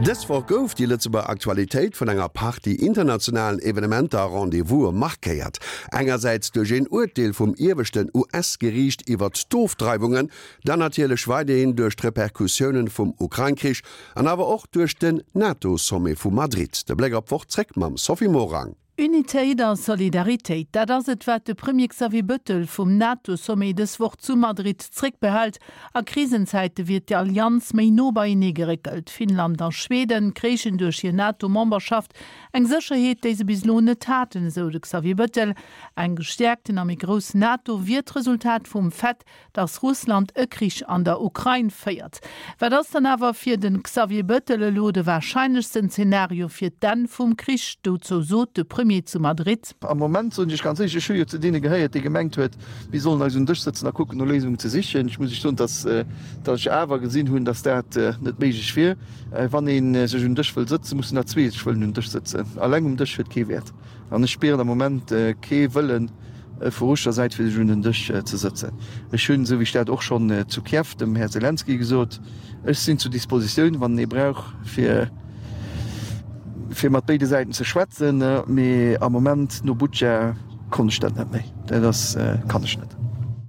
Dës Woch gouf déi Lëtzebuerger Aktualitéit vun enger Partie internationalen Evenementer a Rendez-vouse markéiert. Engersäits duerch een Urteel vum ieweschten US-Geriicht iwwert d'Ofdreiwungen, dann natierlech weiderhin duerch d'Repercussiounen vum Ukrain-Krich an awer och duerch den NATO-Sommet vu Madrid. De Bléck op d'Woch zréck mam Sophie Morang. Unitéit a Solidaritéit, dat ass et, wat de Premier Xavier Bettel vum NATO-Sommet dës Woch zu Madrid zréckbehält. A Krisenzäite wier d'Allianz méi no beienee geréckelt. Finnland a Schweden kréichen duerch hir NATO-Memberschaft eng Sécherheet, déi se bis elo net haten, esou de Xavier Bettel. Eng gestäerkten a méi grouss NATO wier d'Resultat vum Fait, dass Russland e Krich an der Ukrain féiert. Wat ass dann awer fir de Xavier Bettel elo de warscheinlechsten Zenario fir d'Enn vum Krich? Dozou sot de Premier zu Madrid. Am Moment soen ech ganz éierlech, ech hu jo zu deene gehéiert, dee gemengt huet, mir sollen eis un den Dësch sëtzen a kucken no Léisungen ze sichen. Ech muss Iech soen, dass dass ech awer gesinn hunn, dass dat net méiglech wier. Wann ee sech un den Dësch wëll sëtzen, mussen der zwee sech wëllen un den Dësch sëtzen. Alleng um Dësch huet kee Wäert. An ech spieren am Moment kee Wëllen vu russescher Säit, fir sech un den Dësch ze sëtzen. Ech hunn, esou wéi ech dat och schonn zu Kiew dem Här Selenskyj gesot, ech sinn zur Dispositioun, wann en ee brauch, fir fir mat béide Säiten ze schwätzen. Mee am Moment, no Butscha, konnt ech dat net méi. Dat ass, kann ech net.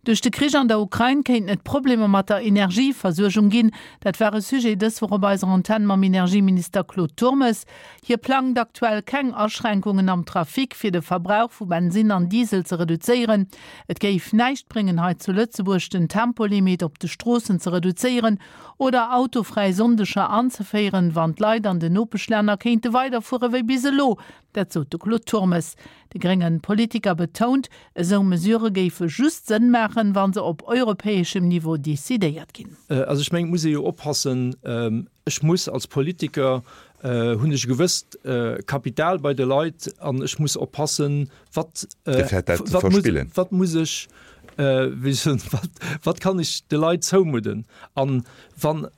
Duerch de Krich an der Ukrain kéinten et Problemer mat der Energieversuergung ginn. Dat war e Sujet dës Woch op eiser Antenn mam Energieminister Claude Turmes. Hie plangt aktuell keng Aschränkungen am Trafic, fir de Verbrauch vu Bensinn an Diesel ze reduzéieren. Et géif näischt bréngen, hei zu Lëtzebuerg den Tempolimit op de Stroossen ze reduzéieren oder autofräi Sonndeger anzeféieren, wann d'Leit an den Nopeschlänner kéinte weiderfuere wéi bis elo. Dat sot de Claude Turmes. De grénge Politiker betount, esou Mesurë géife just Sënn maachen, wa se op europäeschem Niveau decidéiert ginn. Also ech mengen, et muss ee jo oppassen, Ech muss als Politiker, hunn ech e gewësst Kapital bei de Leit an ech muss oppassen, wat, wat muss, wat muss ech, wéi soen, wat, wat kann ech de Leit zoumudden. An wann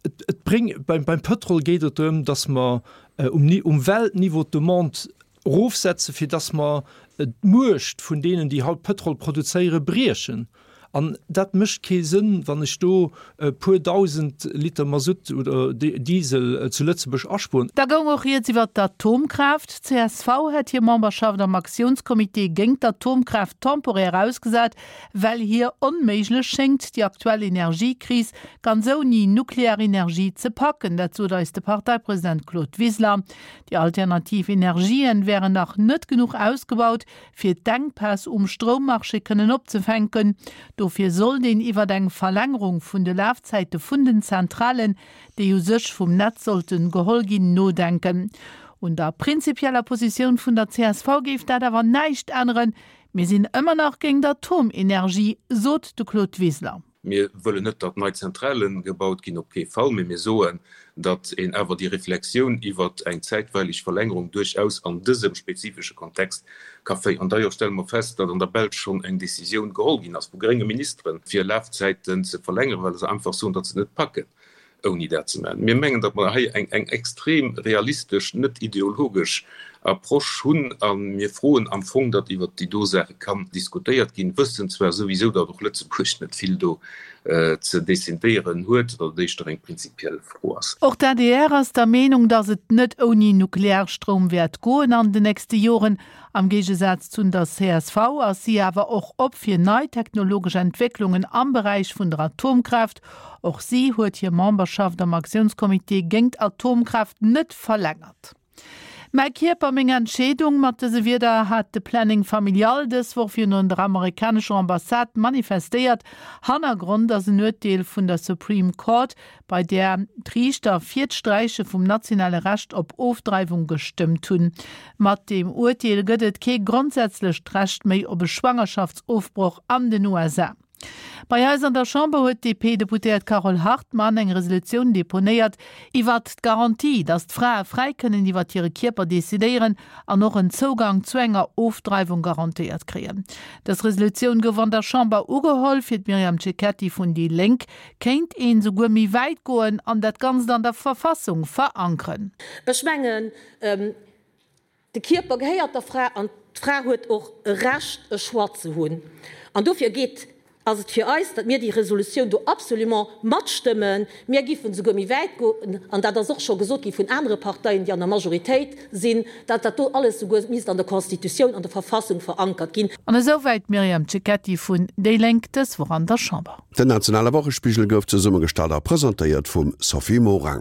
et, et bréng, beim, beim Pëtrol geet et drëm, datt mer um, um Weltniveau d'Demande erofsetzen, fir datt mer d'Muecht vun deenen, déi haut Pëtrol produzéieren, briechen. An dat mécht kee Sënn, wann ech do e puer dausend Liter Masutt oder Diesel zu Lëtzebuerg aspueren. Da goung och rieds iwwer d'Atomkraaft. D'CSV hätt hir Memberschaft am Aktiounscomité géint d'Atomkraaft temporär ausgesat, well hir onméiglech schéngt, déi aktuell Energiekris ganz ouni nuklear Energie ze packen. Dat sot eis de Parteipresident Claude Wiseler. Déi alternativ Energien wären nach net genuch ausgebaut, fir d'Enkpäss um Stroummarché kënnen opzefänken. Dofir sollt een iwwert eng Verlängerung vun de Lafzäite vun den Zentralen, déi u sech vum Netz sollten geholl ginn, nodenken. Un der prinzipieller Positioun vun der csv géif dat awer näischt änneren. Mir sinn ëmmer nach géint Atomenergie, sot de Claude Wiseler. Mir wëllen net, datt nei Zentrale gebaut ginn, op kee Fall, mee mir soen, datt een awer déi Reflexioun iwwer eng zäitweilig Verlängerung duerchaus an dësem spezifesche Kontext ka féieren. D'ailleurs stelle mer fest, datt an der Belsch schonn eng Décisioun geholl ginn ass vu grénge Ministeren, fir Lafzäiten ze verlängeren, well se einfach soen, datt se et net packen. ouni dat ze maachen. Mir mengen, datt mer hei eng eng extrem realistesch, net ideologesch Approche hunn a mir froen am Fong, datt iwwert déi do Saache kann diskutéiert ginn, wëssen zwar souwisou, datt och Lëtzebuerg net vill do ze decidéieren huet, datt et éischter eng prinzipiell Fro ass. Och d'ADR ass der Meenung, datt et net ouni Nuklearstroum wäert goen an den nächste Joren. Am Géigesaz zun der csv ass si awer och op fir nei technologesch Entwécklungen am Beräich vun der Atomkraaft. Och si huet hir Memberschaft am Aktiounscomité géingt Atomkraaft net verlängert. Mäi Kierper, meng Entscheedung, mat dëse Wierder hat de Planning Familial dës Woch virun der amerikanescher Ambassade manifestéiert. Hannergrond ass en Urteel vun der Supreme Court, bei där d'Riichter fir d'Sträiche vum nationale Recht op Ofdreiwung gestëmmt hunn. Mat deem Urteel gëtt et kee grondsätzlecht Recht méi op e Schwangerschaftsofbroch an den USA. Bei eis an der Chamber huet d'DP-Deputéiert Carole Hartmann eng Resolutioun deponéiert iwwert d'Garantie, datt d'Frae fräi kënnen iwwert hire Kierper decidéieren an och en Zougang zu enger Ofdreiwung garantéiert kréien. Dës Resolutioun gouf an der Chamber ugeholl. Fir d'Myriam Cecchetti vun déi Lénk Kéint een souguer méi wäit goen an dat Ganzt an der Verfassung verankeren. Ech mengen, de Kierper gehéiert der Fra an d'Fra huet och e Recht, e Choix ze hunn. An dofir geet. Ass et fir eis, datt mir déi Resolutioun do absolument matstëmmen. Mir giffen esouguer méi wäit goen, an dat ass och scho gesot gi vun anere Parteien, déi an der Majoritéit sinn, datt dat do alles esouguer misst an der Constitutioun, an der Verfassung verankert ginn. An esouwäit d'Myriam Cecchetti vun déi Lénk dës Woch an der Chamber. Den nationale Wochespigel gouf zesummegestallt a presentéiert vum Sophie Morang.